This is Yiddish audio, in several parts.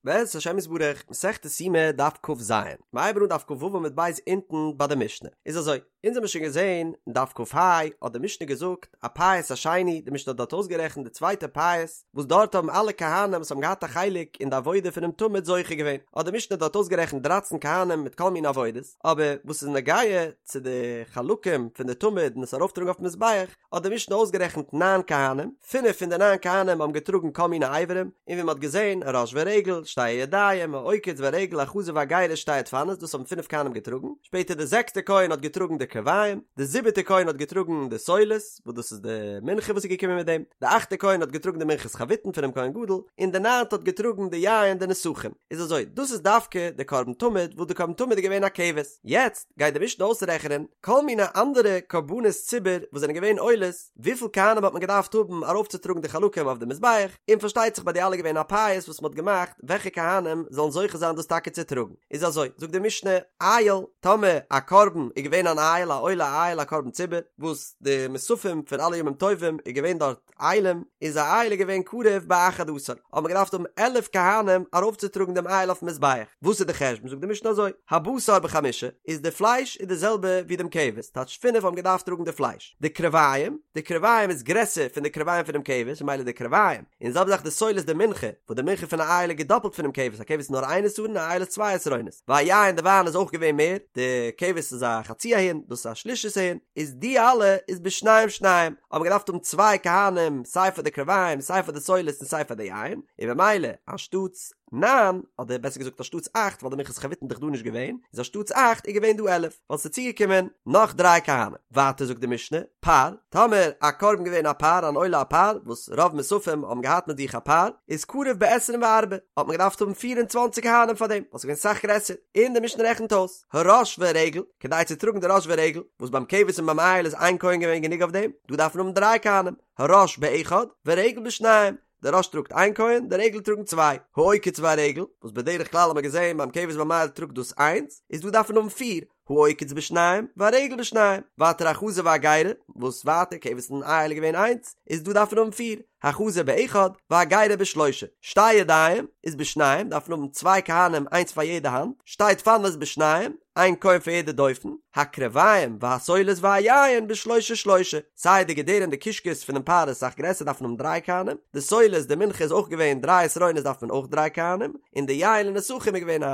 בעזרת השם יתברך, מסכת יומא דף כ"ז, מ'הייבן אן דף כ"ו עמוד ב' אונטן ביי די משנה, איז אזוי, אונז האמיר שוין געזען אין דף כ"ה האט די משנה געזאגט הפייס השני, די משנה האט דארט אויסגערעכנט די צווייטע פייס, וואס דארט האבן אלע כהנים וואס האבן געהאט א חלק אין די עבודה פונעם תמיד זוכה געווען, האט די משנה דארט אויסגערעכנט דרייצן כהנים מיט כל מיני עבודות, אבער וואס איז נוגע צו די חלקים פון די תמיד און עס ארויפטראגן אויפן מזבח, האט די משנה אויסגערעכנט ניין כהנים, פינף פון די ניין כהנים האבן געטראגן כל מיני אברים, און ווי מען האט געזען, הראש והרגל, שתי הידיים, העוקץ והרגל, החזה והגרה, שתי הדפנות, דאס האבן פינף כהנים געטראגן, שפעטער די זעקסטע כהן האט געטראגן די קרביים, די זיבעטע כהן האט געטראגן די סולת, וואס דאס איז די מנחה וואס איז געקומען מיט דעם, די אכטע כהן האט געטראגן די מנחת חביתין פונעם כהן גדול, און די ניינטע האט געטראגן די יין די נסכים. איז אזוי, דאס איז דווקא די קרבן תמיד, וואס די קרבן תמיד איז געווען א כבש. יעצט גייט די משנה אויסרעכענען כל מיני אנדערע קרבנות ציבור וואס זענען געווען עולות, וויפיל כהנים האט מען געדארפט האבן ארויפצוטראגן די חלקים אויף די מזבח, און פארשטייט זיך ביי די אלע געווען א פייס וואס מען האט געמאכט וועלכע כהנים זאלן זוכה זיין דאס טאקע צו טראגן. איז אזוי, זאגט די משנה, איל, טאמער א קרבן איז געווען אן איל, א עולה א איל א קרבן ציבור, וואס די מוספים פון אלע ימים טובים איז געווען דארט אילים, איז א איל איז געווען קרב באחד עשר, האט מען געדארפט האבן 11 כהנים ארויפצוטראגן דעם איל אויפן מזבח, וואס איז די חשבון, זאגט די משנה אזוי, הבשר בחמשה, איז די פלייש איז די זעלבע ווי דעם כבש, טייטש פינף האבן געדארפט טראגן די פלייש, די קרביים, די קרביים איז גרעסער פון די קרביים פונעם כבש, ממילא די קרביים, און זעלבע זאך די סולת די מנחה, וואס די מנחה פון א איל איז געדאפלט פונעם כבש, א כבש איז נאר איין עשרון, א איל איז צוויי עשרונות, והיין די וויין איז אויך געווען מער, די כבש איז א חצי ההין, דאס איז א שלישית ההין, איז די אלע איז בשניים שניים, האט מען געדארפט האבן צוויי כהנים סיי פאר די קרביים סיי פאר די סולת און סיי פאר די יין, און במילא אנשטאטס ניין, אדער בעסער געזאגט אנשטאטס אכט ווייל די מנחת חביתין איז דאך דא נישט געווען, איז אנשטאטס אכט איז געווען דא 11, ווייל ס'איז צוגעקומען נאך דריי כהנים. ווייטער זאגט די משנה, פר, טאמער א קרבן געווען א פר, אן עולה א פר, וואס רוב מוספים האבן געהאט מיט זיך א פר, איז קרב בעשרים וארבעה, האט מען געדארפט האבן פיר און צוואנציג כהנים פאר דעם, ווייל ס'איז געווען סאך גרעסער, און די משנה רעכנט אויס, הראש והרגל, כדי צו טראגן די ראש ורגל, וואס ביים כבש און ביים איל איז איין כהן געווען גענוג אויף דעם, דא דארף מען האבן דריי כהנים, הראש באחד, ורגל בשניים, די ראש טראגט איין כהן, די רגל טראגן צוויי, העוקץ והרגל, וואס בדרך כלל האט מען געזען ביים כבש ביים איל טראגט דאס איינס, איז דא דארף מען האבן פיר, העוקץ בשניים, והרגל בשניים, ווייטער החזה והגרה, וואס ווייטער כבש און איל איז געווען איינס, איז דא דארף מען האבן פיר, החזה באחד, והגרה בשלושה, שתי ידיים, איז בשניים, דארף מען האבן צוויי כהנים איינס פאר יעדע האנט, שתי דפנות בשניים, איין כהן פאר יעדע דופן, הקרביים והסולת והיין בשלושה שלושה, סיי די געדערים די קישקעס פונעם פר איז אסאך גרעסער דארף מען האבן דריי כהנים, די סולת די מנחה איז אויך געווען דריי עשרונות דארף מען אויך דריי כהנים, און די יין לנסכים איז געווען א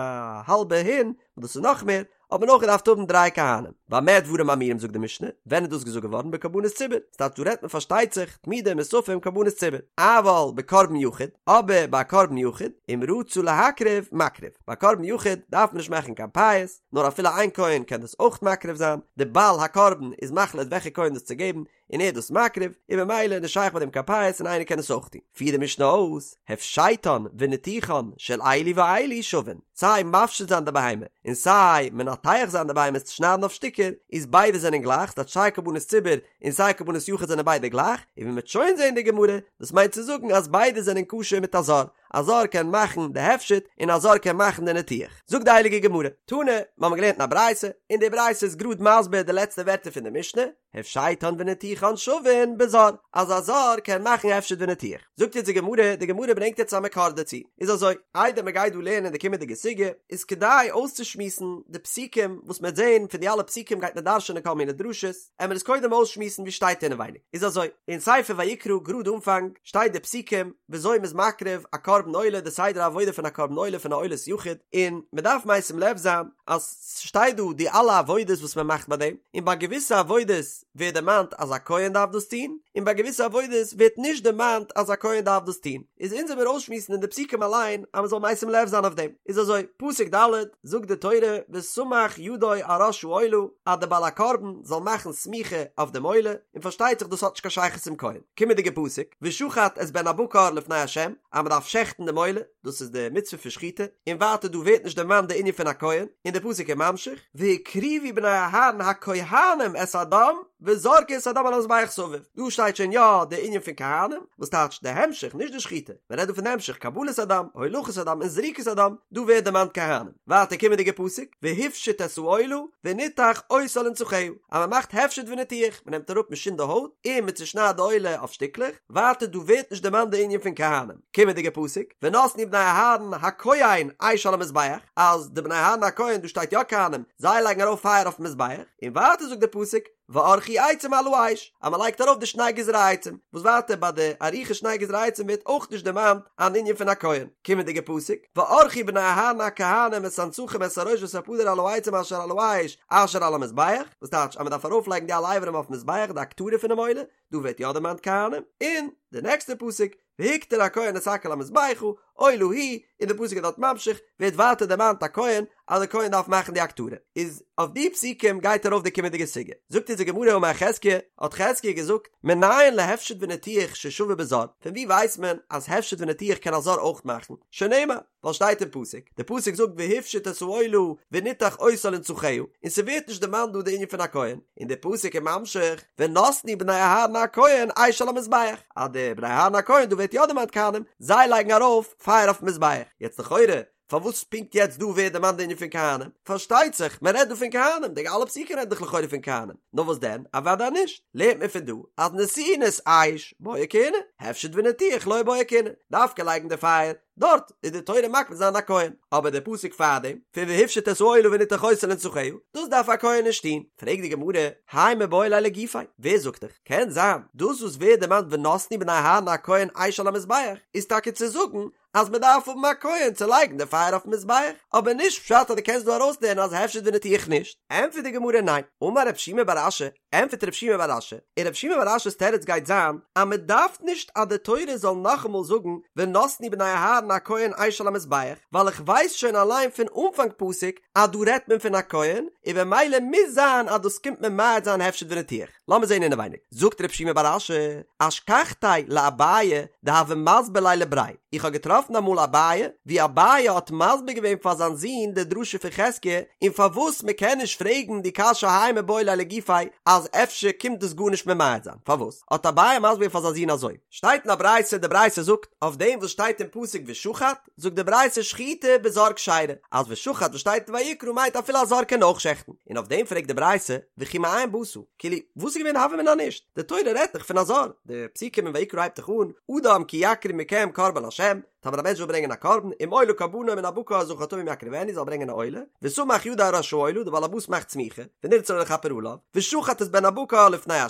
האלבע הין, וואס דאס איז נאך מער, האט מען אויך געדארפט האבן דריי כהנים. במה דברים אמורים זאגט די משנה, ווען איז דאס געזאגט געווארן בקרבנות ציבור, ס'טייטש דא רעדט מען פארשטייט זיך, תמידים מוספים קרבנות ציבור, אבל בקרבן יחיד, אבער ביי א קרבן יחיד, אם רצה להקריב, מקריב, ביי א קרבן יחיד דארף מען נישט מאכן קיין פייס, נאר אפילו איין כהן קען דאס אויך מקריב זיין, די בעל הקרבן איז מחליט וועלכע כהן דאס צו געבן, און ער איז דאס מקריב, און ממילא איז נישט שייך ביי דעם קיין פייס און איינער קען עס אויך טון. פירט די משנה אויס, הפשטן וניתוחן של אלו ואלו שווין, סיי מפשיט זיין די בהמה, און סיי מנתח זיין די בהמה עס צו שניידן אויף שטיקער, איז ביידע זענען גלייך, ס'טייטש סיי קרבנות ציבור און סיי קרבנות יחיד זענען ביידע גלייך, און ווי מ'וועט שוין זען אין די גמרא, דאס מיינט צו זאגן אז ביידע זענען כשר מיט א זר, א זר קען מאכן די הפשט און א זר קען מאכן די ניתוח. זאגט די הייליגע גמרא, תנא, מ'האמיר געלערנט אין א ברייתא, און די ברייתא איז גראד מסביר די לעצטע ווערטער פון די משנה, הפשטן וניתוחן שווין בזר, אז א זר קען מאכן הפשט וניתוח. זאגט יעצט די גמרא, די גמרא ברענגט יעצט א מקור דערצו. איז אזוי, איידער מען גייט דא לערנען די קומענדיגע סוגיא, איז כדאי אויסצושמועסן די פסוקים וואס מען וועט זען, פון די אלע פסוקים גייט מען דרש'ענען כל מיני דרשות, עמער עס קודם אויסשמועסן ווי שטייט אינעווייניג. איז אזוי, אין ספר ויקרא גראד אנפאנג, שטייט די פסוקים וויאזוי מען איז מקריב א קרבן עולה, די סדר העבודה פון א קרבן עולה פון א עולת יחיד, און מען דארף משים לב זיין אז ס'שטייט דא די אלע עבודות וואס מען מאכט ביי דעם, און ביי געוויסע עבודות ווערט דערמאנט אז א כהן דארף דאס טון, און ביי געוויסע עבודות ווערט נישט דערמאנט אז א כהן דארף דאס טון, איז אונז עמיר אויסשמועסן אין די פסוקים אליין אז מען זאל משים לב זיין אויף דעם, איז אזוי, פסוק ד' זאגט די תורה וסמך ידו על ראש העולה אז די בעל הקרבן זאל מאכן סמיכה אויף דעם עולה, און פארשטייט זיך דאס האט נישט קיין שייכות צום כהן. קומענדיגע פסוק, ושחט את בן הבקר לפני ה', אז מען דארף שעכטן דעם עולה, דאס איז די מצוה פון שחיטה, און ווייטער דא ווערט נישט דערמאנט די ענין פון א כהן, און די פסוק איז ממשיך, והקריבו בני אהרן הכהנים את הדם. וזרקו את הדם על המזבח סביב, דא שטייט שוין יא די ענין פון כהנים, וואס טייטש די המשך, נישט די שחיטה, מען רעדט דא פון די המשך, קבלת הדם, הולכת הדם און זריקת הדם, דא ווערט דערמאנט כהנים. ווייטער קומענדיגע פסוק, והפשיט את העולה, וניתח אותה לנתחיה, אז מען מאכט הפשט וניתוח, מען נעמט אראפ מען שינדט די הויט, און מען צושניידט די עולה אויף שטיקלעך, ווייטער דא ווערט נישט דערמאנט די ענין פון כהנים. קומענדיגע פסוק, ונתנו בני אהרן הכהן אש על המזבח, אז די בני אהרן הכהן, דא שטייט יא כהנים, זיי לייגן ארויף פייער אויפן מזבח, און ווייטער זאגט די פסוק, וערכו עצים על האש, אז מען לייגט ארויף די שני גזרי עצים, וואס ווייטער ביי די עריכת שני גזרי עצים ווערט אויך נישט דערמאנט אן ענין פון א כהן. קומענדיגע פסוק, וערכו בני אהרן הכהנים את הנתחים את הראש ואת הפדר על העצים אשר על האש אשר על המזבח, וואס טייטש אז מען דארף ארויפלייגן די אלע אברים אויפן מזבח, די הקטרה פונעם עולה, דא ווערט יא דערמאנט כהנים, און די נעקסטע פסוק, והקטיר הכהן את הכל המזבחה, עולה היא, און די פסוק איז דארט ממשיך, ווערט ווייטער דערמאנט א כהן, אז די כהן דארף מאכן די הקטרה. איז אויף די פסוקים גייט ארויף די קומענדיגע סוגיא. זאגט אונז די גמרא אמר חזקיה, האט חזקיה געזאגט, מנין להפשט וניתוח ששווה בזר, פון ווי ווייסט מען אז הפשט וניתוח קען א זר אויך מאכן? שנאמר, ווייל שטייט אין פסוק, די פסוק זאגט והפשיט את העולה וניתח אותה לנתחיה, און ס'ווערט נישט דערמאנט דא די ענין פון א כהן, און די פסוק איז ממשיך, ונתנו בני אהרן הכהן אש על המזבח, אז די בני אהרן הכהן, דא ווערט יא דערמאנט כהנים, זיי לייגן ארויף פייער אויפן מזבח, יעצט לכאורה, פארוואס פונקט יעצט דא ווערט דערמאנט די ענין פון כהנים? פארשטייט זיך, מען רעדט דא פון כהנים, די אלע פסוקים רעדן דאך לכאורה פון כהנים, נאר וואס דען, אוודאי נישט, לערנט מען פון דא אז נתינת אש בעי כהונה, הפשט וניתוח לא בעי כהונה, דווקא לייגן די פייער, דארט איז די תורה מקפיד זיין א כהן, אבער די פסוק פארדעם, פון והפשיט את העולה וניתח אותה לנתחיה, דאס דארף א כהן נישט טון. פרעגט די גמרא, האי מיבעי ליה לגופיה, ווער זאגט דיך? קען זיין, דאס וואס ווערט דערמאנט ונתנו בני אהרן הכהן אש על המזבח, איז טאקע צו זאגן אז מען דארף האבן א כהן צו לייגן די פייער אויפן מזבח, אבער נישט פשט אז דו קענסט דא ארויסלערנען אז הפשט וניתוח נישט. ענטפערט די גמרא ניין, אמר רב שימי בר אשי, ענטפערט רב שימי בר אשי, און רב שימי בר אשי'ס תירוץ גייט זיין אז מען דארף נישט אז די תורה זאל נאכאמאל זאגן ונתנו בני אהרן הכהן אש על המזבח, ווייל איך ווייס שוין אליין פון אנפאנג פסוק אז דא רעדט מען פון א כהן, און במילא מוז זיין אז דאס קומט ממעט זיין הפשט וניתוח. לאמיר זען אינעווייניג. זאגט רב שימי בר אשי, אשכחתיה לאביי דהוה מסביר ליה לבריה, איך האב געטראפן אמאל אביי, ווי אביי האט מסביר געווען פאר זיין זון די דרשה פון חזקיה, און פארוואס מען קען נישט פרעגן די קשיא האי מיבעי ליה לגופיה אז אפשר קומט דאס גארנישט ממעט זיין, פארוואס האט אביי מסביר געווען פאר זיין זון אזוי? שטייט אין א ברייתא, די ברייתא זאגט אויף דעם וואס שטייט אין פסוק ושחט, זאגט די ברייתא שחיטה בזר כשרה, אז ושחט וואס שטייט אין ויקרא מיינט אפילו א זר קען אויך שעכטן, און אויף דעם פרעגט די ברייתא וכי מאין באת, כאילו וואס איז געווען די הוה אמינא נישט, די תורה רעדט דאך פון א זר, די פסוקים אין ויקרא הייבט דאך אן, אדם כי יקריב מכם קרבן לה', טאמער א מענטש וויל ברענגען א קרבן, אם עולה קרבנו מן הבקר זכר תמים יקריבנו זאל ברענגען א עולה, וסמך ידו על ראש העולה, די בעל הבית מאכט סמיכה, ונרצה לו לכפר עליו, ושחט את בן הבקר לפני ה',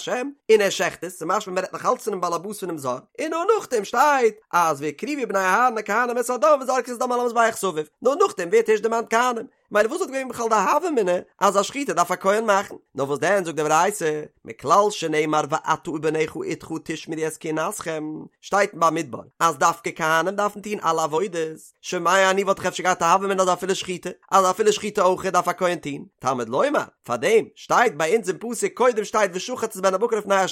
און ער שעכט עס, ס'משמע מ'רעדט נאך אלץ פונעם בעל הבית פונעם זר, און נאר נאכדעם שטייט אז והקריבו בני אהרן הכהנים את הדם וזרקו את הדם על המזבח סביב, נאר נאכדעם ווערט ערשט דערמאנט כהנים, מילא וואס וואלט געווען בכלל די הוה אמינא אז א שחיטה דארף א כהן מאכן? נאר וואס דען זאגט די ברייתא, מכלל שנאמר ואתה ובניך אתך תשמרו את כהונתכם, שטייט אין במדבר אז דווקא כהנים דארפן טון אלע עבודות, שומע אני וואלט איך אפשר געהאט א הוה אמינא אז אפילו שחיטה, אז אפילו שחיטה אויך דארף א כהן טון, תלמוד לומר, פארדעם שטייט ביי אונז אין פסוק קודם שטייט ושחט את בן הבקר לפני ה'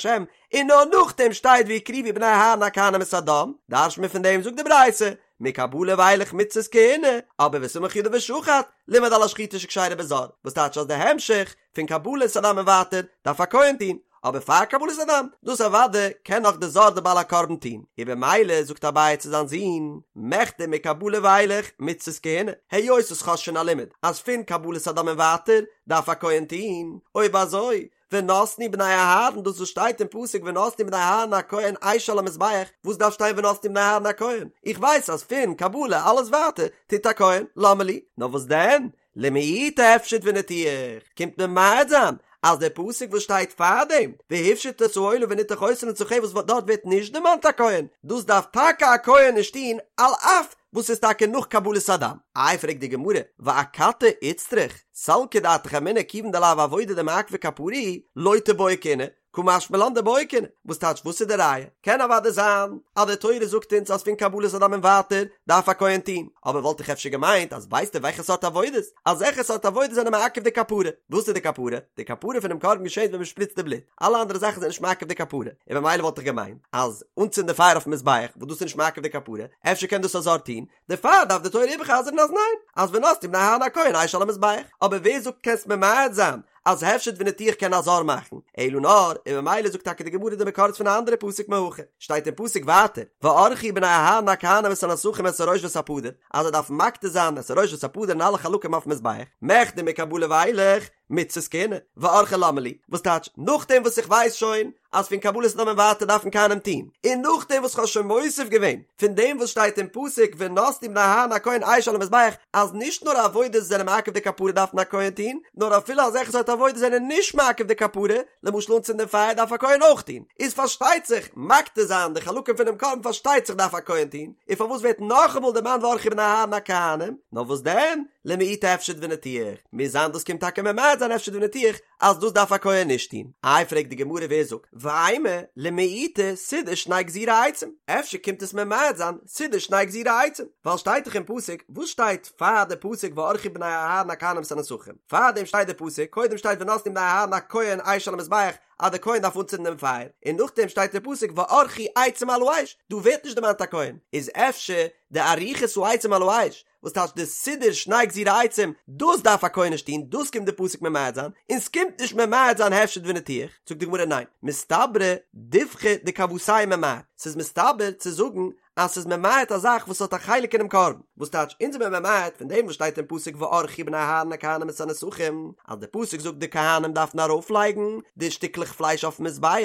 און נאר נאכדעם שטייט והקריבו בני אהרן הכהנים את הדם, דרש'ט מען פון דעם זאגט די ברייתא, מקבלה ואילך מצות כהונה, אבער וסמך ידו ושחט, לימד על השחיטה שכשרה בזר, וואס טייטש אז די המשך, פון קבלת הדם און ווייטער, דארף א כהן טון, אבער פאר קבלת הדם, דאס אוודאי קען נאך די זר די בעל הקרבן טון, און במילא זאגט אביי צו זיין זון, מכדי מקבלה ואילך מצות כהונה, היות וואס כ'האב שוין א לימוד אז פון קבלת הדם און ווייטער דארף א כהן טון, אויב אזוי, ונתנו בני אהרן, דאס וואס שטייט אין פסוק ונתנו בני אהרן הכהן אש על המזבח, וואס דארף שטיין ונתנו בני אהרן הכהן? איך ווייס אז פון קבלה אלעס ווייטער טוט א כהן, למה לי? נאר וואס דען? למעוטי הפשט וניתוח, קומט ממעט זיין אז דער פסוק וואס שטייט פארדעם, והפשיט את העולה וניתח אותה לנתחיה וואס דארט ווערט נישט דערמאנט א כהן, דאס דארף טאקע א כהן נישט טון על אף וואס איז טאקע נאך קבלת הדם. איי פרעגט די גמרא, ואכתי איצטריך, סלקא דעתך אמינא כיוון דלאו עבודה דמעכבא כפרה היא, לא תיבעי כהונה, קא משמע לן דבעי כהונה, וואס טייטש וואס איז די ראיה? קען אוודאי זיין אז די תורה זאגט אונז אז פון קבלת הדם און ווייטער דארף א כהן טון, אבער וואלט איך אפשר געמיינט אז ווייסטו וועלכע סארט עבודות? אזעלכע סארט עבודות זענען מעכב די כפרה. וואס איז די כפרה? די כפרה פונעם קרבן געשעט ווען מען שפריצט די בלוט, אלע אנדערע זאכן זענען נישט מעכב די כפרה, און במילא וואלט איך געמיינט אז אנצינדן די פייער אויפן מזבח וואס דאס איז נישט מעכב די כפרה, אפשר קען דאס א זר טון, דערפאר דארף די תורה איבער'חזר'ן אז ניין, אז ונתנו בני אהרן הכהן אש על המזבח, אבער ווער זאגט קענסט ממעט זיין? אז הפשט וניתוח קען א זר מאכן, אלא נאר, און ממילא זאגט טאקע די גמרא די מקור איז פון א אנדערע פסוק מהכא, שטייט אין פסוק ווייטער, וערכו בני אהרן הכהנים את הנסכים את הראש ואת הפדר, אז זיי דארפן מקטיר זיין את הראש ואת הפדר און אלע חלקים אויפן מזבח, מכדי מקבלה ואילך, מצות כהונה, וערכו למה לי, וואס טייטש, נאכדעם וואס איך ווייס שוין אז פון קבלת הדם און ווייטער דארפן כהנים טון, און נאכדעם וואס כ'האב שוין מוסיף געווען פון דעם וואס שטייט אין פסוק ונתנו בני אהרן הכהן אש על המזבח אז נישט נאר עבודות זענען מעכב די כפרה דארפן א כהן טון, נאר אפילו אזעלכע סארט עבודות זענען נישט מעכב די כפרה, למשל אנצינדען פייער דארף א כהן אויך טון, איז פארשטייט זיך מקטיר זיין די חלקים פונעם קרבן פארשטייט זיך דארף א כהן טון, און פארוואס ווערט נאכאמאל דערמאנט וערכו בני אהרן הכהנים, נאר וואס דען? למעוטי הפשט וניתוח, מוז זיין דאס קומט טאקע ממעט זיין הפשט וניתוח אז דאס דארף א כהן נישט טון. איי פרעגט די גמרא ווער זאגט ואימא למעוטי סידור שני גזירי עצים, אפשר קומט עס ממעט זיין סידור שני גזירי עצים, ווייל שטייט דאך אין פסוק, וואס שטייט פאר די פסוק וערכו בני אהרן הכהנים את הנסכים, פארדעם שטייט די פסוק, קודם שטייט ונתנו בני אהרן הכהן אש על המזבח, אז די כהן דארף אנצינדן דעם פייער, און נאכדעם שטייט די פסוק וערכו עצים על האש, דא ווערט נישט דערמאנט א כהן, איז אפשר די עריכת העצים על האש, וואס טייטש די סידור שני גזירי עצים, דאס דארף א כהן נישט טון, דאס קומט די פסוק ממעט זיין, און ס'קומט נישט ממעט זיין הפשט וניתוח, זאגט די גמרא ניין, מסתברא דיבחא דכוותיה ממעט, ס'איז מסתבר צו זאגן אז ס'איז ממעט א זאך וואס האט א חלק אינעם קרבן, וואס טייטש אונז זעמיר ממעט פון דעם וואס שטייט אין פסוק וערכו בני אהרן הכהנים את הנסכים, אז די פסוק זאגט די כהנים דארפן ארויפלייגן די שטיקלעך פלייש אויפן מזבח,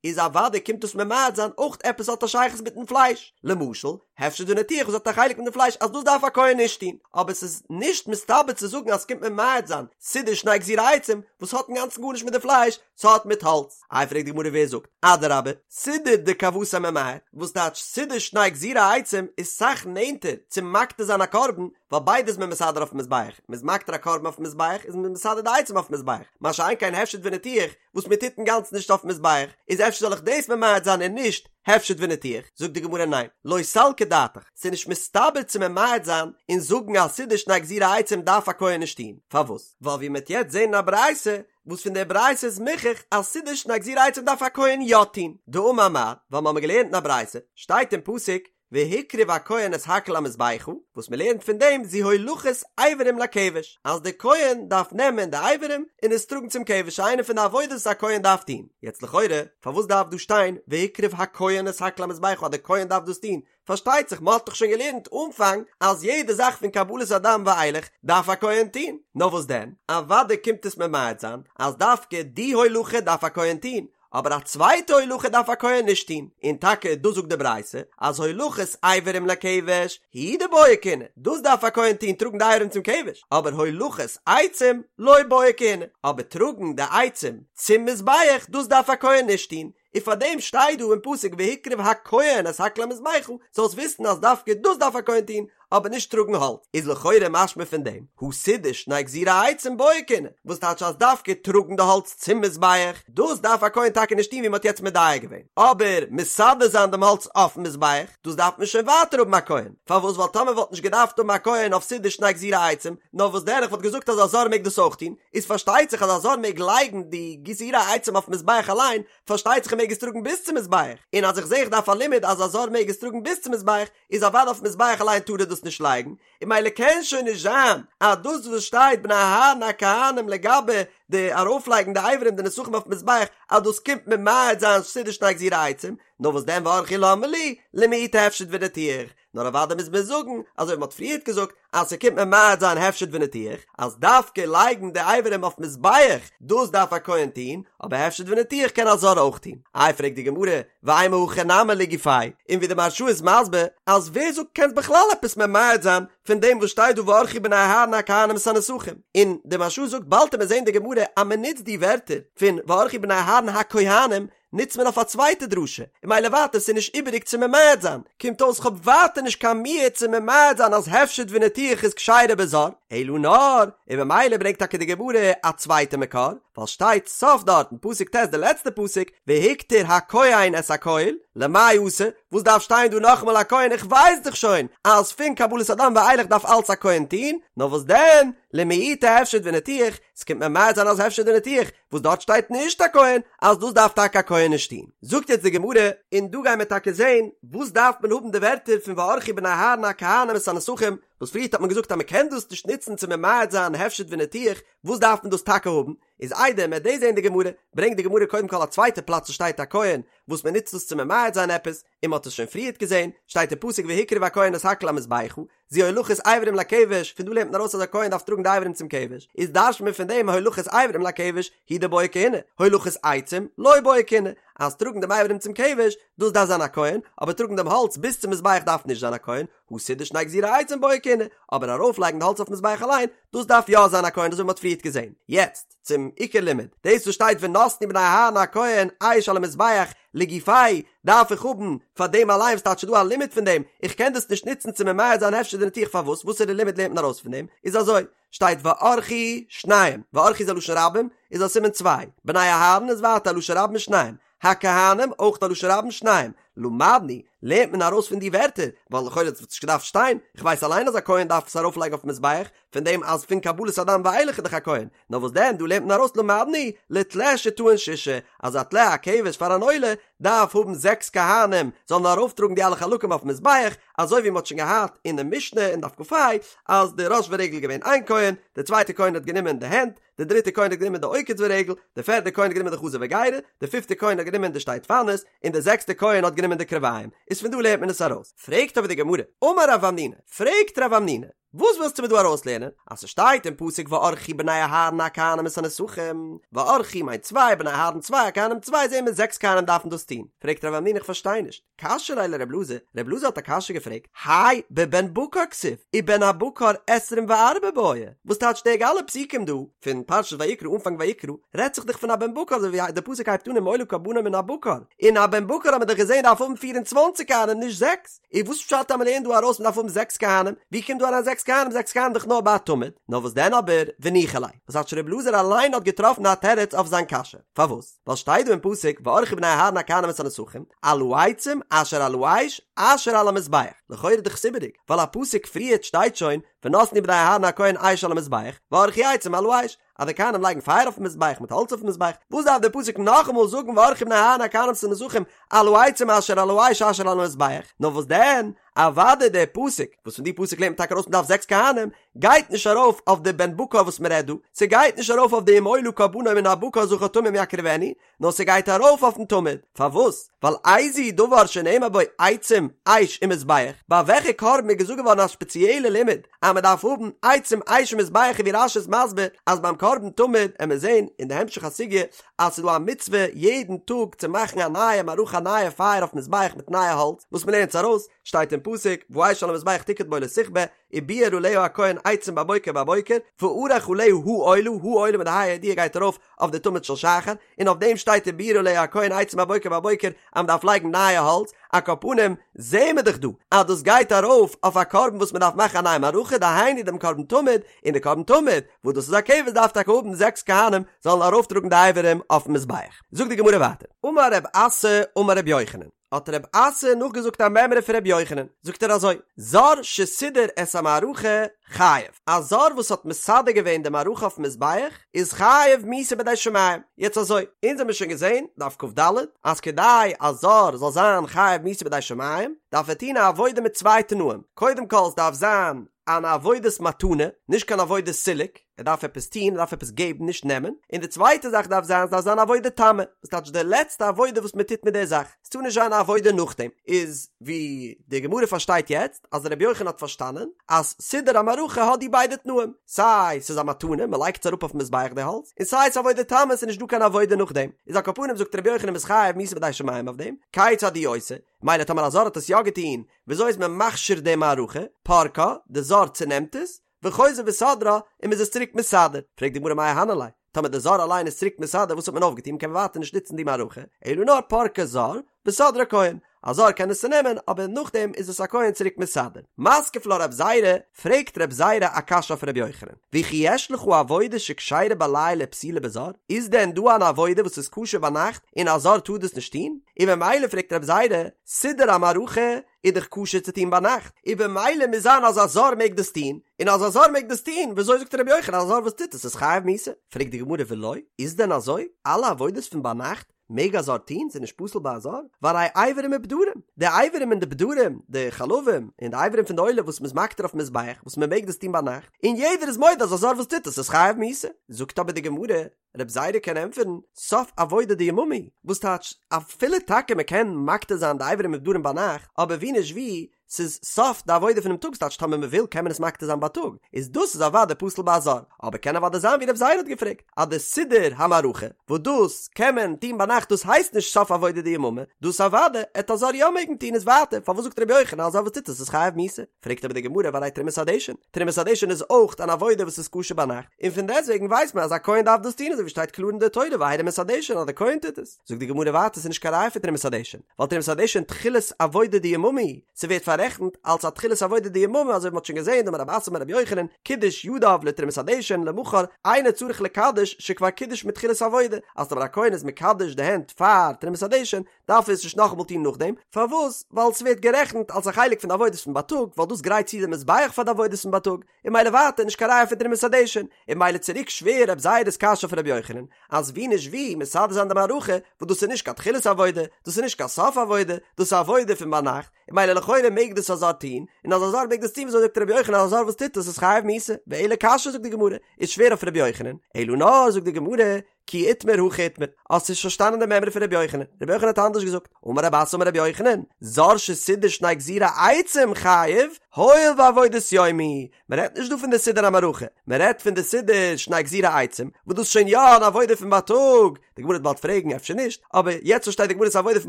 איז אוודאי קומט דאס ממעט זיין אויך עפעס האט א שייכות מיטן פלייש, למשל, הפשט וניתוח וואס האט א חלק מיט די פלייש אז דאס דארף א כהן נישט טון, אבער ס'איז נישט מסתבר צו זאגן אז ס'קומט ממעט זיין סידור שני גזירי עצים וואס האט אינגאנצן גארנישט מיט די פלייש, ס'האט מיט האלץ. איי פרעגט די גמרא ווער זאגט? אדרבה, סידור דכוותיה ממעט, וואס טייטש סידור שני גזירי עצים איז סאך נענטער צו מקטיר זיין א קרבן, ווייל ביידע איז מען מסדר אויפן מזבח, מ'איז מקטיר א קרבן אויפן מזבח איז מען מסדר די עצים אויפן מזבח, מה שאין כן הפשט וניתוח וואס מען טוט אינגאנצן נישט אויפן מזבח, איז אפשר זאל איך דאס ממעט זיין און נישט הפשט וניתוח? זאגט די גמרא ניין, לא סלקא דעתך, ס'איז נישט מסתבר צו ממעט זיין און זאגן אז סידור שני גזירי עצים דארף א כהן נישט טון, פארוואס? ווייל ווי מ'עט יעצט זען אין א ברייתא, וואס פון דער ברייתא איז מוכח אז סידור שני גזירי עצים דארף א כהן יא טון, דאמר מר, ווייל מ'האמיר געלערנט אין א ברייתא, שטייט אין פסוק, והקריב הכהן את הכל המזבחה, וואס מען לערנט פון דעם זו הולכת אברים לכבש, אז דער כהן דארף נעמען די אברים און עס טראגן צום כבש, איינע פון די עבודות וואס א כהן דארף טון. יעצט לכאורה, פארוואס דארף דא שטיין והקריב הכהן את הכל המזבחה אז דער כהן דארף דאס טון? פארשטייט זיך, מען האט דאך שוין געלערנט אנפאנג אז יעדע זאך פון קבלת הדם ואילך דארף א כהן טון. נאר וואס דען, אוודאי קומט עס ממעט זיין אז דווקא די הולכה דארף א כהן טון, אבער א צווייטע הולכה דארף א כהן נישט טון, און טאקע דאס זאגט די ברייתא, אז הולכת אברים לכבש הוא דבעיא כהונה, דאס דארף א כהן טון טראגן די אברים צום כבש, אבער הולכת עצים לא בעיא כהונה, אבער טראגן די עצים צום מזבח דאס דארף א כהן נישט טון, און פאר דעם שטייט דא אין פסוק והקריב הכהן את הכל המזבחה, זאלסט וויסן אז דווקא דאס דארף א כהן טון, אבער נישט טראגן האלץ, איז לכאורה משמע פון דעם, הא סידור שני גזירי עצים בעיא כהונה, וואס טייטש אז דווקא טראגן די האלץ צום מזבח, דאס דארף א כהן טאקע נישט טון ווי מען האט יעצט מדייק געווען, אבער מסדר זיין דעם האלץ אויפן מזבח, דאס דארף מען שוין ווייטער האבן א כהן, פארוואס ווייל טאמער וואלט נישט געדארפט האבן א כהן אויף סידור שני גזירי עצים, נאר וואס דען איך וואלט געזאגט אז א זר מעג דאס אויך טון, איז פארשטייט זיך אז א זר מעג לייגן די גזירי עצים אויפן מזבח אליין, פארשטייט זיך ער מעג עס טראגן ביז צום מזבח, און אז איך זע איך דארף א לימוד אז א זר מעג עס טראגן ביז צום מזבח, איז אוודאי אויפן מזבח אליין טאר ער דאס נישט לייגן, און ממילא קען שוין נישט זיין אז דאס וואס שטייט בני אהרן הכהנים לגבי די ארויפלייגן די אברים די נסכים אויפן מזבח אז דאס קומט ממעט זיין סידור שני גזירי עצים, נאר וואס דען וערכו למה לי למעוטי הפשט וניתוח, נאר אוודאי מוז מען זאגן אזוי ווי מ'האט פריערט געזאגט אז ס'קומט ממעט זיין הפשט וניתוח, אז דווקא לייגן די אברים אויף מזבח דאס דארף א כהן טון, אבער הפשט וניתוח קען א זר אויך טון. איי פרעגט די גמרא, ואימא הכי נמי לגופיה, און ווי די מהרש"א איז מסביר אז ווער זאגט קענסט בכלל עפעס ממעט זיין פון דעם וואס שטייט דא וערכו בני אהרן הכהנים את הנסכים, און די מהרש"א זאגט באלד וועט מען זען די גמרא אז מען נוצט די ווערטער פון וערכו בני אהרן הכהנים נוצט מען אויף א צווייטע דרשה, און ממילא ווייטער ס'איז נישט איבעריג צו ממעט זיין, קומט אויס כ'האב ווייטער נישט קיין מיעוט צו ממעט זיין אז הפשט וניתוח איז כשרה בזר, אלא נאר, און ממילא ברענגט טאקע די גמרא א צווייטע מקור, ווייל שטייט סוף דארט אין פסוק ט' די לעצטע פסוק, והקטיר הכהן את הכל, למאי אתא, וואס דארף שטיין דא נאכאמאל הכהן איך ווייס דאך שוין אז פון קבלת הדם ואילך דארף אלץ א כהן טון, נאר וואס דען, למעוטי הפשט וניתוח, ס'קומט ממעט זיין אז הפשט וניתוח, וואס דארט שטייט נישט הכהן, אז דאס דארף טאקע א כהן נישט טון. זאגט יעצט די גמרא, און דא גייען מיר טאקע זען וואס דארף מען האבן די ווערטער פון וערכו בני אהרן הכהנים את הנסכים, וואס פריערט האט מען געזאגט אז מען קען דאס נישט נוצן צו ממעט זיין הפשט וניתוח, וואס דארף מען דאס טאקע האבן? איז איידער מ'עט דאס זעהן די גמרא, ברענגט די גמרא קודם כל א צווייטע פלאץ וואס שטייט א כהן וואס מען נוצט דאס צו ממעט זיין עפעס, און מען האט עס שוין פריערט געזעהן, שטייט אין פסוק והקריב הכהן את הכל המזבחה, זו הולכת אברים לכבש, פון דא לערנט מען ארויס אז א כהן דארף טראגן די אברים צום כבש, איז דרש'נט מען פון דעם הולכת אברים לכבש הוא דבעי כהונה, הולכת עצים לא בעי כהונה, אז טראגן דעם אברים צום כבש, דאס דארף זיין א כהן, אבער טראגן דעם האלץ ביז צום מזבח דארף נישט זיין א כהן, הא סידור שני גזירי עצים בעי כהונה, אבער ארויפלייגן די האלץ אויפן מזבח אליין, דאס דארף יא זיין א כהן אזוי ווי מ'האט פריערט געזען. יעצט צום עיקר לימוד, דאס וואס שטייט ונתנו בני אהרן הכהן אש על המזבח לגופיה דארף איך האבן פאר דעם אליין וואס טייטש ס'דא א לימוד פון דעם, איך קען דאס נישט נוצן צו ממעט זיין הפשט וניתוח פארוואס וואסערע לימוד לערנט מען ארויס פון דעם, איז אזוי, שטייט וערכו שניים, וערכו איז א לשון רבים, איז א סימן צוויי, בני אהרן איז ווייטער א לשון רבים שניים, הכהנים אויך א לשון רבים שניים, למדנו, לערנט מען ארויס פון די ווערטער, ווייל לכאורה האט עס נישט געדארפט שטיין, איך ווייס אליין אז א כהן דארף עס ארויפלייגן אויפן מזבח, פון דעם אז פון קבלת הדם ואילך איז דאך א כהן, נאר וואס דען דא לערנט מען ארויס למדנו, לטלה שטעון שישה, אז א טלה א כבש פאר אן עולה דארף האבן זעקס כהנים זאלן ארויפטראגן די אלע חלקים אויפן מזבח, אזוי ווי מען האט שוין געהאט אינעם משנה אין דף כה אז די ראש ורגל איז געווען איין כהן, די צווייטע כהן האט גענומען די הענט, די דריטע כהן האט גענומען די עוקץ ורגל, די פערדע כהן האט גענומען די חזה וגרה, די פיפטע כהן האט גענומען די שתי דפנות, און די זעקסטע כהן האט גענומען די קרביים, איז פון דא לערנט מען עס ארויס. פרעגט אבער די גמרא, אמר רב המנונא, פרעגט רב המנונא, וואס ווילסטו מיר דא ארויסלערנען? אז ס'שטייט אין פסוק וערכו בני אהרן הכהנים את הנסכים, וערכו מיינט צוויי, בני אהרן צוויי, הכהנים צוויי, זעהן מיר זעקס כהנים דארפן דאס טון. פרעגט רב המנונא איך פארשטיי נישט, קשיא ליה לרב אלעזר, רב אלעזר האט א קשיא געפרעגט, האי בבן בקר כתיב, ובן הבקר עשרים וארבעה בעי, וואס טייטש די אלע פסוקים דא, פון פרשת ויקרא אנפאנג ויקרא, רעדט זיך דאך פון א בן בקר אזוי ווי די פסוק הייבט אן אם עולה קרבנו מן הבקר, און א בן בקר האט מען דאך געזען דארף האבן פיר און צוואנציג כהנים נישט זעקס, איז וואס פשט אז מען לערנט דא ארויס מען דארף האבן זעקס כהנים, ווי קומט דא אריין זעקס כהנים, זעקס כהנים דאך נאר ביי א תמיד, נאר וואס דען אבער, וניחא ליה, וואס טייטש רב אלעזר אליין האט געטראפן א תירוץ אויף זיין קשיא, פארוואס? ווייל שטייט דא אין פסוק וערכו בני אהרן הכהנים את הנסכים על העצים אשר על האש אשר על המזבח, לכאורה איז דאך עס איבעריג, ווייל א פסוק פריערט שטייט שוין ונתנו בני אהרן הכהן אש על המזבח וערכו עצים על האש, אז די כהנים לייגן פייער אויפן מזבח מיט האלץ אויפן מזבח, וואס דארף דער פסוק נאכאמאל זאגן וערכו בני אהרן הכהנים את הנסכים על העצים אשר על האש אשר על המזבח, נאר וואס דען, אוודאי דער פסוק, וואס פון די פסוק לערנט מען טאקע ארויס מען דארף זעקס כהנים, גייט נישט ארויף אויף די בן בקר וואס מען רעדט דא, ס'גייט נישט ארויף אויף די אם עולה קרבנו מן הבקר זכר תמים יקריבנו, נאר ס'גייט ארויף אויפן תמיד, פארוואס? ווייל איזהו דבר שנאמר בו עצים, אש ומזבח, ביי וועלכע קרבן איז געזאגט געווארן א ספעציעלע לימוד אז מען דארף האבן עצים אש ומזבח און ווי רש"י איז מסביר אז ביים קרבן תמיד עמיר זעהן אין די המשך הסוגיא אז ס'איז דא א מצוה יעדן טאג צו מאכן א נייע מערכה א נייע פייער אויפן מזבח מיט נייע האלץ וואס מען לערנט עס ארויס שטייט אין פסוק והאש על המזבח תוקד בו לא תכבה ובער עליה הכהן עצים בבוקר בבוקר וערך עליה העולה העולה מיט די ה' הידיעה גייט ארויף אויף די תמיד של שחר און אויף דעם שטייט ובער עליה הכהן עצים בבוקר בבוקר אז מען דארף לייגן נייע האלץ על כל פנים זעהן מיר דאך דא אז דאס גייט ארויף אויף א קרבן וואס מען דארף מאכן א נייע מערכה דהיינו דעם קרבן תמיד און די קרבן תמיד וואס דאס איז א כבש דארף טאקע האבן זעקס כהנים זאלן ארויפטראגן די אברים אויפן מזבח. זאגט די גמרא ווייטער, אמר רב אסי אמר רבי יוחנן, האט רב אסי נאכגעזאגט א מימרא פון רבי יוחנן, זאגט ער אזוי, זר שסידר את המערכה חייב, א זר וואס האט מסדר געווען די מערכה אויפן מזבח איז חייב מיתה בידי שמים, יעצט אזוי, אונז האמיר שוין געזען, דף כ"ד, אז כדי א זר זאל זיין חייב מיתה בידי שמים, דארף ער טון א עבודה מיט צוויי תנאים, קודם כל עס דארף זיין אן עבודת מתנה, נישט קיין עבודת סילוק, ער דארף עפעס טון, ער דארף עפעס געבן, נישט נעמען, און די צווייטע זאך דארף זיין, ס'דארף זיין עבודה תמה, וואס טייטש די לעצטע עבודה וואס מען טוט מיט די זאך, ס'טאר נישט זיין א עבודה נאכדעם, איז ווי די גמרא פארשטייט יעצט, אז רבי יוחנן האט פארשטאנען, אז סידור המערכה האט די ביידע תנאים, סיי ס'איז א מתנה, מען לייגט עס אראפ אויפן מזבח די האלץ, און סיי ס'איז עבודה תמה, ס'איז נישט דא קיין עבודה נאכדעם, איז על כל פנים זאגט רבי יוחנן מ'איז חייב מיתה בידי שמים אויף דעם, כיצד הוא עושה, מילא טאמער א זר האט עס יא געטון, וויאזוי איז מען מכשיר די מערכה? פורקה, די זר צונעמט עס, וחוזר וסודרה, און מען איז עס צוריק מסדר. פרעגט די גמרא מאי אהני ליה, טאמער די זר אליין איז צוריק מסדר וואס האט מען אויפגעטון, מען קען ווייטער נישט נוצן די מערכה, אלא נאר פורקה זר, וסודרה כהן, א זר קען עס צונעמען, אבער נאכדעם איז עס א כהן צוריק מסדר. מתקיף לה רב זירא, פרעגט רב זירא א קשיא אויף רבי יוחנן, וכי יש לך עבודה שכשרה בלילה ופסולה בזר? איז דען דא אן עבודה וואס איז כשר ביינאכט און א זר טאר דאס נישט טון? און במילא פרעגט רב זירא, סידור המערכה איז דאך כשר צו טון ביינאכט, און במילא מוז זיין אז א זר מעג דאס טון, און אז א זר מעג דאס טון, וויאזוי זאגט רבי יוחנן אז א זר וואס טוט עס איז חייב מיתה? פרעגט די גמרא ולא, איז דען אזוי? אלע עבודות פון ביינאכט? מעג א זר טון? ס'איז נישט פסול ביי א זר? והרי אברים ופדרים, די אברים און די פדרים, די חלבים און די אברים פון די עולה וואס מ'איז מקטיר אויפן מזבח, וואס מ'מעג דאס טון ביינאכט, און יעדער איז מודה אז א זר וואס טוט עס איז חייב מיתה. זאגט אבער די גמרא, רב זירא קען ענטפערן, סוף עבודה דיממא, וואס טייטש, אפילו טאקע מ'קען מקטיר זיין די אברים ופדרים ביינאכט, אבער ווי נישט ווי, ס'איז סוף די עבודה פונעם טאג ס'טייטש טאמער מ'וויל קען מען עס מקטיר זיין בייטאג, איז דאס איז אוודאי פסול ביי א זר, אבער קען אוודאי זיין ווי רב זירא האט געפרעגט אז די סידור המערכה וואס דאס קען מען טון ביינאכט דאס הייסט נישט סוף עבודה דיממא, דאס אוודאי עט א זר יא מעגן טון איז ווייטער פארוואס זאגט רבי יוחנן אז א זר וואס טוט עס איז חייב מיתה? פרעגט אבער די גמרא והרי תרומת הדשן, תרומת הדשן איז אויך אן עבודה וואס איז כשר ביינאכט, און פון דעסטוועגן ווייסט מען אז א כהן דארף דאס טון אזוי ווי שטייט קלאר אין די תורה והרים את הדשן אז די כהן טוט עס. זאגט די גמרא ווייטער ס'איז נישט קיין ראיה פון תרומת הדשן, ווייל תרומת הדשן תחילת עבודה דיממא, ס'ווערט פאררעכנט אלס א תחילת עבודה דיממא אזוי ווי מ'האט שוין געזען דאמר רב אסי אמר רבי יוחנן קידש ידיו לתרומת הדשן למחר אינו צריך לקדש שכבר קידש מתחילת עבודה, אז טאמער א כהן איז מקדש די הענט פאר תרומת הדשן דארף ער עס נישט נאכאמאל טון נאכדעם, פארוואס? ווייל ס'ווערט גערעכנט אלס א חלק פון די עבודות פון בייטאג, ווייל דאס גרייט צו די מזבח פאר די עבודות פון בייטאג, און ממילא ווייטער נישט קיין ראיה פון תרומת הדשן, און ממילא צוריק שווער רב זירא'ס קשיא אויף רבי יוחנן, אז ווי נישט ווי מסדר זיין די מערכה, וואס דאס איז נישט קיין תחילת עבודה, דאס איז נישט קיין סוף עבודה, דאס איז עבודה פון ביינאכט, און ממילא לכאורה מעג דאס א זר טון, און אז א זר מעג דאס טון וויאזוי זאגט רבי יוחנן אז א זר וואס טוט עס איז חייב מיתה, ואלא קשיא זאגט די גמרא, איז שווער אויף רבי יוחנן, אלא נאר זאגט די גמרא, כי איתמר הכי איתמר, האסט נישט פארשטאנען די מימרא פון רבי יוחנן, רבי יוחנן האט אנדערש געזאגט, אמר רב אסי אמר רבי יוחנן, זר שסידר שני גזירי עצים חייב, הואיל ועבודת יום היא, מען רעדט נישט דא פון די סידור המערכה, מען רעדט פון די סידור שני גזירי עצים, וואס דאס איז שוין יא אן עבודה פון בייטאג, די גמרא וועט באלד פרעגן אפשר נישט, אבער יעצט פארשטייט די גמרא ס'איז עבודה פון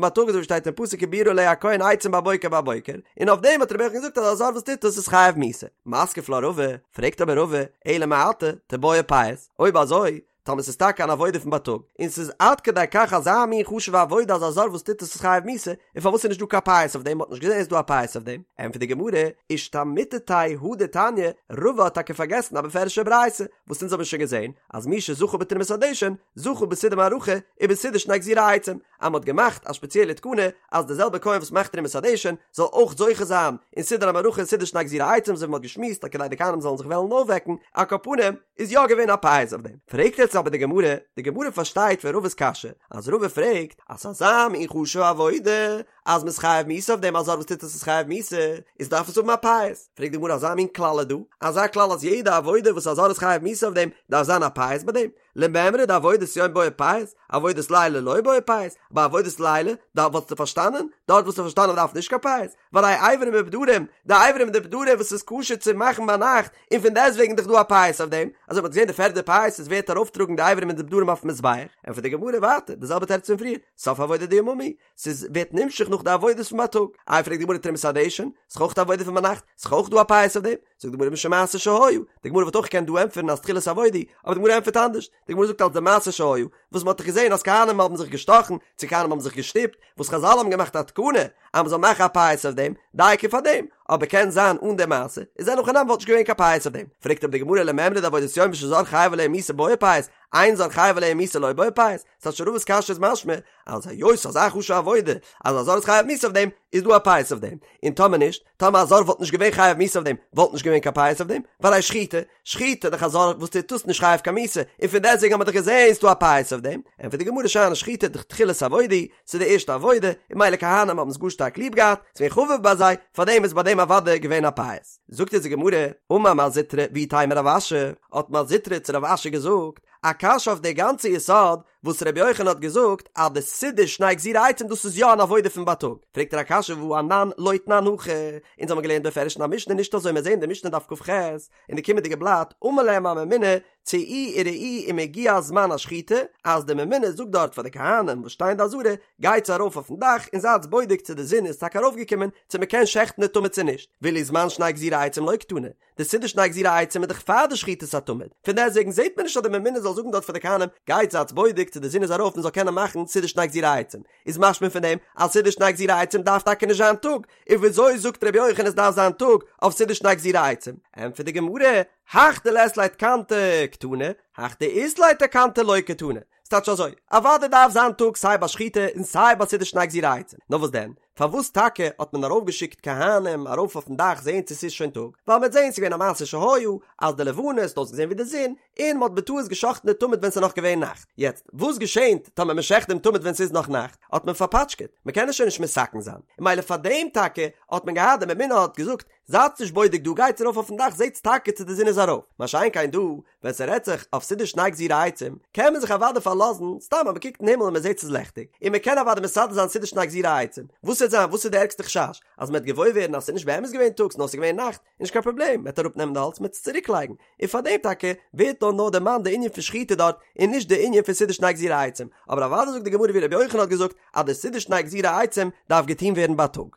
בייטאג אזוי ווי שטייט אין פסוק ובערה עליה הכהן עצים בבוקר בבוקר, און אויף דעם האט רבי יוחנן געזאגט אז א זר וואס טוט דאס איז חייב מיתה. מתקיף לה רבא, פרעגט אבער רבא, אלא מעתה, תיבעי פייס, אויב אזוי, טאמער ס'איז טאקע אן עבודה פון בייטאג, און ס'איז עד כדי כך אזא מין חשוב'ע עבודה אז א זר וואס טוט עס איז חייב מיתה, און פארוואס איז נישט דא קיין פייס אויף דעם, מ'האט נישט געזען איז דא א פייס אויף דעם? ענטפערט די גמרא, אישתמיטתיה הא דתניא, רבא האט טאקע פארגעסן א בפירוש'ע ברייתא, וואס אונז האבן שוין געזען, אז מי שזכה בתרומת הדשן, זכה בסידור מערכה, ובסידור שני גזירי עצים, אז מ'האט געמאכט א שפעציעלע תקנה אז דער זעלבער כהן וואס מאכט תרומת הדשן זאל אויך זוכה זיין אין סידור המערכה און סידור שני גזירי עצים אזוי ווי מ'האט געשמועסט אז כדי די כהנים זאלן זיך וועלן אויפוועקן, על כל פנים, איז יא געווען א פייס אויף דעם. פרעגט יעצט אבער די גמרא, די גמרא פארשטייט פון רבא'ס קשיא, אז רבא פרעגט אז ס'איז אזא מין חשוב'ע עבודה אז מ'איז חייב מיתה אויף דעם, א זר וואס טוט עס איז חייב מיתה, איז דארף עס האבן א פייס. פרעגט די גמרא אזא מין כלל איז דא? אזא כלל אז יעדע עבודה וואס א זר איז חייב מיתה אויף דעם דארף זיין א פייס ביי דעם? למימרא דעבודת יום בעי פייס, עבודת לילה לא בעי פייס, ביי עבודת לילה, דארט וואלסטו פארשטאנען, דארט וואלסטו פארשטאנען מ'דארף נישט קיין פייס, והרי איברים ופדרים, די איברים און די פדרים וואס איז כשר צו מאכן ביינאכט, און פון דעסטוועגן דאך דא א פייס אויף דעם, אזוי מ'האט געזען די פערדע פייס איז ווער וועט ארויפטראגן די איברים און די פדרים אויפן מזבח, ענטפערט די גמרא ווייטער די זעלבע תירוץ פון פריער, סוף עבודה דיממא, ס'איז ווערט נמשך נאך די עבודות פון בייטאג, איי פרעגט די גמרא תרומת הדשן, ס'איז אויך די עבודה פון ביינאכט, ס'איז אויך דא א פייס אויף דעם, זאגט די גמרא משום מעשה שהיה, די גמרא וואלט אויך געקענט דא ענטפערן אז תחילת עבודה, אבער די גמרא ענטפערט אנדערש, די גמרא זאגט אלס די מעשה שהיה, וואס מ'האט דאך געזען אז כהנים האבן זיך געשטאכן, צו כהנים האבן זיך געשטופט, וואס חזל האבן געמאכט א תקנה אז מ'זאל מאכן א פייס אויף דעם, דייקא פאר דעם, אבער קען זיין אן די מעשה, איז אין הכי נמי וואלט נישט געווען קיין פייס אויף דעם, פרעגט אבער די גמרא למימרא דעבודת יום שזר חייב עליה מיתה בעי פייס, אין זר חייב עליה מיתה לא בעי פייס, ס'טייטש רבא'ס קשיא איז משמע אז היות ס'איז אזא חשוב'ע עבודה אז א זר איז חייב מיתה אויף דעם, איז דא א פייס אויף דעם, און טאמער נישט, טאמער א זר וואלט נישט געווען חייב מיתה אויף דעם, וואלט נישט געווען קיין פייס אויף דעם, והרי שחיטה, שחיטה דאך א זר וואס טוט דאס נישט חייב קיין מיתה, און פון דעסטוועגן האט מען דאך געזען ס'דא א פייס אויף דעם, ענטפערט די גמרא שאני שחיטה דתחילת עבודה, ס'איז די ערשטע עבודה, און ממילא כהנים האבן עס גאר שטארק ליב געהאט, ס'איז געווען חביב ביי זיי, פארדעם איז ביי דעם אוודאי געווען א פייס. זאגט אונז די גמרא, אמר מר זוטרא ואיתימא רב אשי, האט מר זוטרא צו רב אשי געזאגט, א קשיא אויף די גאנצע יסוד וואס רבי יוחנן האט געזאגט אז די סידור שני גזירי עצים דאס איז יא אן עבודה פון בייטאג, פרעגט ער א קשיא והא אנן לא תנן הכי, אונז האבן געלערנט בפירוש אין א משנה נישט אזוי מיר זעהן די משנה דף כ"ח אין די קומענדיגע בלאט אמר להם הממונה צאו וראו אם הגיע זמן השחיטה אז די ממונה זאגט דארט פאר די כהנים וואס שטייען אין די עזרה גייטס ארויף אויפן דאך און זייטס בודק צו די זון איז טאקע ארויפגעקומען צו מען קען שעכטן די תמיד צו נישט ואילו זמן שני גזירי עצים לא קתני די סידור שני גזירי עצים איז דאך פאר די שחיטת התמיד, פון דעסטוועגן זעט מען נישט אז די ממונה זאל זאגן דארט פאר די כהנים, גייט זייטס בודק צו די זון איז ארויף מען זאל קענען מאכן סידור שני גזירי עצים, איז משמע פון דעם אז סידור שני גזירי עצים דארף טאקע נישט זיין טאג, און וויאזוי זאגט רבי יוחנן עס דארף זיין טאג אויף סידור שני גזירי עצים? ענטפערט די גמרא, הך דלית ליה תקנתא קתני, הך דאית ליה תקנתא לא קתני, ס'טייטש אזוי, אוודאי דארף זיין טאג סיי ביי שחיטה און סיי ביי סידור שני גזירי עצים, נאר וואס דען? פארוואס טאקע האט מען ארויפגעשיקט כהנים ארויף אויפן דאך זעהן צו ס'איז שוין טאג, ווייל מ'האט זעהן ס'איז געווען א מעשה שהיה אז די לבנה האט אויסגעזעהן ווי די זון, און מ'האט בטעות גע'שחט'ן די תמיד ווען ס'איז נאך געווען נאכט. יעצט, וואס געשענט טאמער מ'שחט דעם תמיד ווען ס'איז נאך נאכט? האט מען פארפאטשקעט, מ'קען עס שוין נישט מתקן זיין. און ממילא פאר דעם טאקע האט מען געהאט, די ממונה האט געזאגט, זייטס נישט בודק דא, גייטס ארויף אויפן דאך זעטס טאקע צו די זון איז ארויף. מה שאין כן דא, ווען ס'רעדט זיך אויף סידור שני גזירי עצים, קען מען זיך אוודאי פארלאזן, סתם אז מ'קוקט אין הימל און מ'זעט ס'איז לעכטיג, און מ'קען אוודאי מסדר זיין סידור שני גזירי עצים. וואס וועט זיין? וואס איז די ערגסטע חשש? אז מ'וועט געוואויר ווערן אז ס'איז נישט באמת געווען טאג נאר ס'איז געווען נאכט, נישט קיין פראבלעם, מ'וועט אראפנעמען די האלץ מ'וועט עס צוריקלייגן. און פאר דעם טאקע ווערט דא נאר דערמאנט די ענין פון שחיטה דארט, און נישט די ענין פון סידור שני גזירי עצים. אבער אוודאי זאגט די גמרא ווי רבי יוחנן האט געזאגט, אז די סידור שני גזירי עצים דארף געטון ווערן בייטאג.